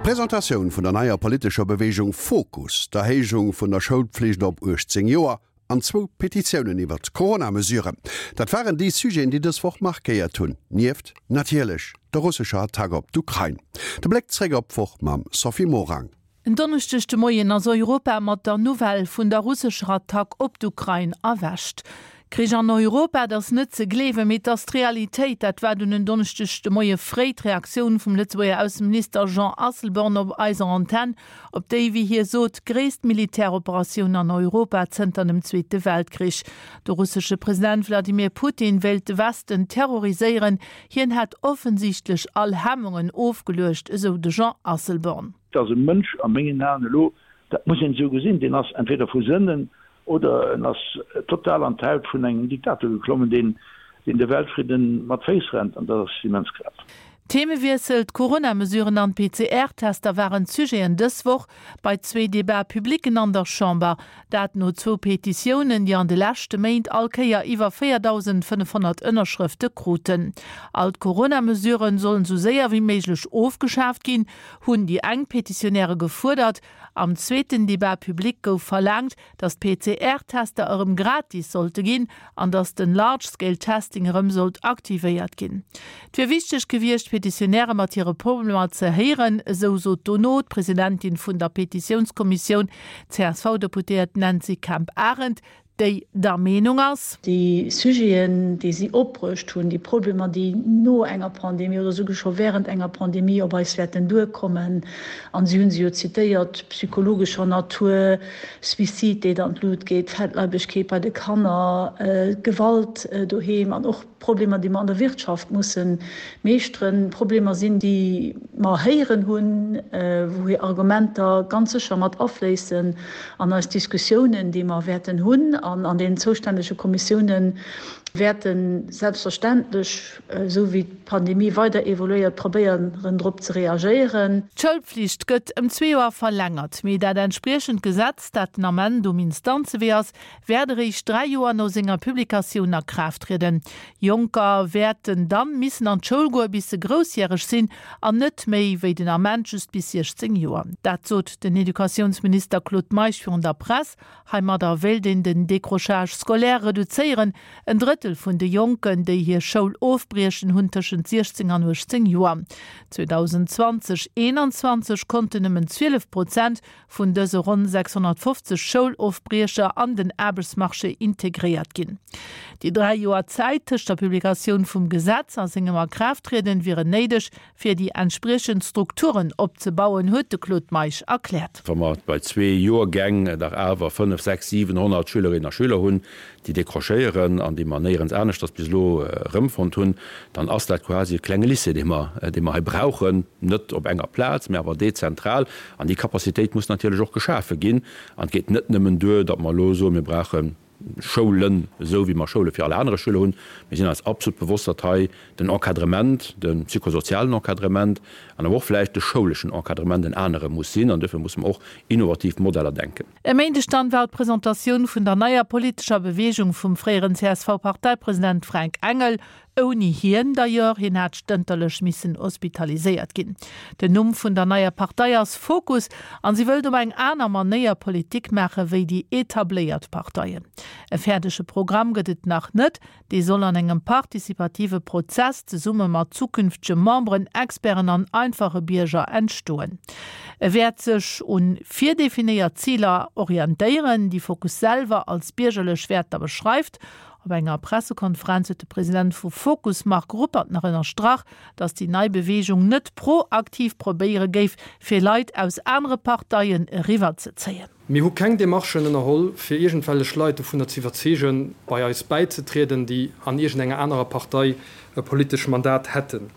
D'Presentatioun vun der neier politescher Beweegung Fokus, d'Erhéijung vun der Schoulpflicht op 18 Joer an zwou Petitiounen iwwer d'Corona-Mesuren, dat waren déi Sujeten, déi dës Woch markéiert hunn, nieft natierlech der russescher Attack op d'Ukrain. De Bléck zréck op d'Woch mam Sophie Morang. En Donneschdeg de Moien ass Europa mat der Nouvelle vun der russescher Attack op d'Ukrain erwächt. Krich an Europa, et ass net ze gleewen, mee et ass d'Realitéit. Dat war dunn en Donneschdeg de Moie fréi d'Reaktioun vum Lëtzebuerger Ausseminister Jean Asselborn op eiser Antenn op déi, wéi hie sot, gréisst Militäroperatioun an Europa zënter dem Zweete Weltkrich. De russesche President Wladimir Putin wéilt de Westen terroriséieren. Hien hätt offensichtlech all Hemmungen ofgeluecht, esou de Jean Asselborn. Et ass e Mënsch a mengen Aen elo, dat muss een esou gesinn, deen ass entweder vu Sënnen oder en ass total an d'Haut vun engem Diktator geklommen, deen de Weltfridden mat Féiss rennt, an dat ass immens grav. Themewiessel, D'Corona-Mesuren an d'PCR-Tester waren d'Sujeten dës Woch bei zwee Debat-publicen an der Chamber. Dat no zwou Petitiounen, déi an de leschte Méint all Kéier iwwer 4.500 Ënnerschrëfte kruten. All d'Corona-Mesuren sollen esou séier wéi méiglech ofgeschaaft ginn, hunn déi eng Petitionäre gefuerdert. Am zweeten Debat public gouf verlaangt, datt d'PCR-Tester erëm gratis sollte ginn an datt den Large Scale Testing erëm sollt aktivéiert ginn. Et wier wichteg gewiescht, d'Petitionäre mat hire Problemer ze héieren, esou sot dono d'Presidentin vun der Petitiounskommissioun, d'CSV-Deputéiert Nancy Kemp-Arendt, déi der Meenung ass. Déi Sujeten, déi si opbruecht hunn, déi Problemer, déi no enger Pandemie oder souguer scho während enger Pandemie op eis wäerten duerkommen, an si hu se jo zitéiert, psychologescher Natur, Suicide, déi an d'Lut geet, Fettleibegkeet bei de Kanner, Gewalt doheem an och Problemer, déi mer an der Wirtschaft musse meeschteren, Problemer sinn, déi mer héieren hunn, wou hir Argumenter ganz sécher mat afléissen an eis Diskussiounen, déi mer wäerten hunn an an deenen zoustännege Kommissiounen wäerte selbstverständlech, esou wéi d'Pandemie weider evoluéiert, probéieren drop ze reagéieren. D'Schoulpflicht gëtt ëm zwee Joer verlängert, mee dat entspriechend Gesetz, dat den Ament um Instanzewee ass, wäert eréischt 3 Joer no senger Publikatioun a Kraaft trieden. Jonker wäerten dann missen an d'Schoul goe bis se groussjäreg sinn an net méi wéi den Ament just bis 16 Joer. Dat sot den Educatiounsminister Claude Meisch virun der Press. Heimadder wéilt een den Décrochage scolaire reduzéieren. En Drëttel vun de Jonken, déi hir Schoul ofbriechen, hunn tëschent 16 an 18 Joer. 2020, 21 konnten nëmmen 12 Prozent vun dëse ronn 650 Schoulofbriecher an den Aarbechtsmarché integréiert ginn. Déi 3 Joer Zäit tëscht der Publikatioun vum Gesetz a sengem Akraafttrieden wieren néideg, fir déi entspriechend Strukturen opzebauen, huet de Claude Meisch erkläert. Wa mer bei zwee Joergäng dach awer 5, 6, 700 Schülerinnen a Schüler hunn, déi décrochéieren an déi mer néierens aneschters bis elo erëmfonnt hunn, dann ass dat quasi e klenge Lycée, dee mer, dee mer hei brauchen, net op enger Plaz, mä awer dezentral. An déi Capacitéit muss natierlech och geschafe ginn. An et geet net nëmmen duer, datt mer elo soen, mir brauche Schoulen, esou wéi mer Schoule fir all anere Schüler hunn. Mir sinn eis absolut bewosst, datt hei den Encadrement, de psychosozialen Encadrement an awer och vläicht de schouleschen Encadrement en anere muss sinn. An duerfir musse mer och innovativ Modeller denken. E Méindeg dann war d'Presentatioun vun der neier politescher Beweegung vum fréieren CSV-Parteipresident Fränk Engel, ouni hien d'ailleurs, hien hat stënterlech missen hospitaliséiert ginn. Den Numm vun der neier Partei ass Fokus an si wëllt op eng aner Manéier Politik maache wéi déi etabléiert Parteien. E fäerdege Programm gëtt et nach net, Dee soll an engem participative Prozess zesumme mat zukünftege Memberen, Experten an einfache Bierger entstoen. E wäert sech un virdefinéiert Ziler orientéieren, déi Fokus selwer als biergerlech Wäerter beschreift. Op enger Pressekonferenz huet de President vu Fokus Marc Ruppert nach ënnerstrach, datt déi nei Beweegung net proaktiv probéiere géif, fir Leit aus anere Parteien eriwwerzezéien. Mir hu keng Demarchen ënnerholl, fir iergendwellech Leit dovunner ze iwwerzeegen, bei eis bäizetrieden, déi an iergendenger anerer Partei e politesch Mandat hätten.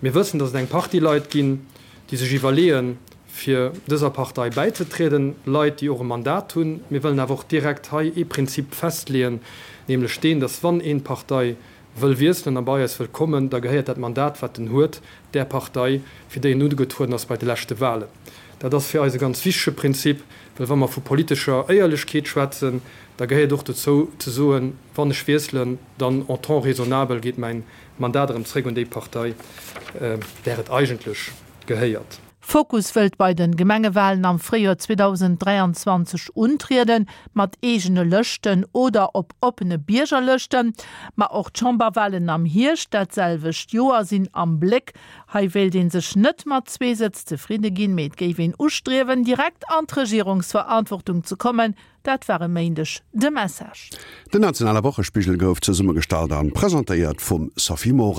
Mir wëssen, datt et eng Partie Leit ginn, déi sech iwwerleeën, fir dëser Partei bäizetrieden, Leit, déi och e Mandat hunn. Mir wëllen awer och direkt hei ee Prinzip festleeën, nämlech deen, datt wann een d'Partei wëll wiesselen a bei eis wëll kommen, da gehéiert dat Mandat, wat en huet, där Partei, fir déi en ugetrueden ass bei de leschte Wahlen. Dat ass fir eis e ganz wichtege Prinzip, well wa mer vu politescher Éierlechkeet schwätzen, da gehéiert och dozou ze soen, wann ech wiesselen, dann en temps raisonnabel geet mäin Mandat erëm zréck un déi Partei, där et eigentlech gehéiert. Fokus wëllt bei de Gemengewalen am Fréijoer 2023 untrieden, mat eegene Lëschten oder op oppene Biergerlëschten. Ma och d'Chamberwalen am Hierscht dat selwecht Joer sinn am Bléck. Hei wéilt ee sech net mat zwee Sëtz zefridde ginn, mee et géif een ustriewen, direkt an d'Regierungsverantwortung ze kommen. Dat war e Méindeg de Message. Den nationale Wochespigel gouf zesummegestallt an presentéiert vum Sophie Morang.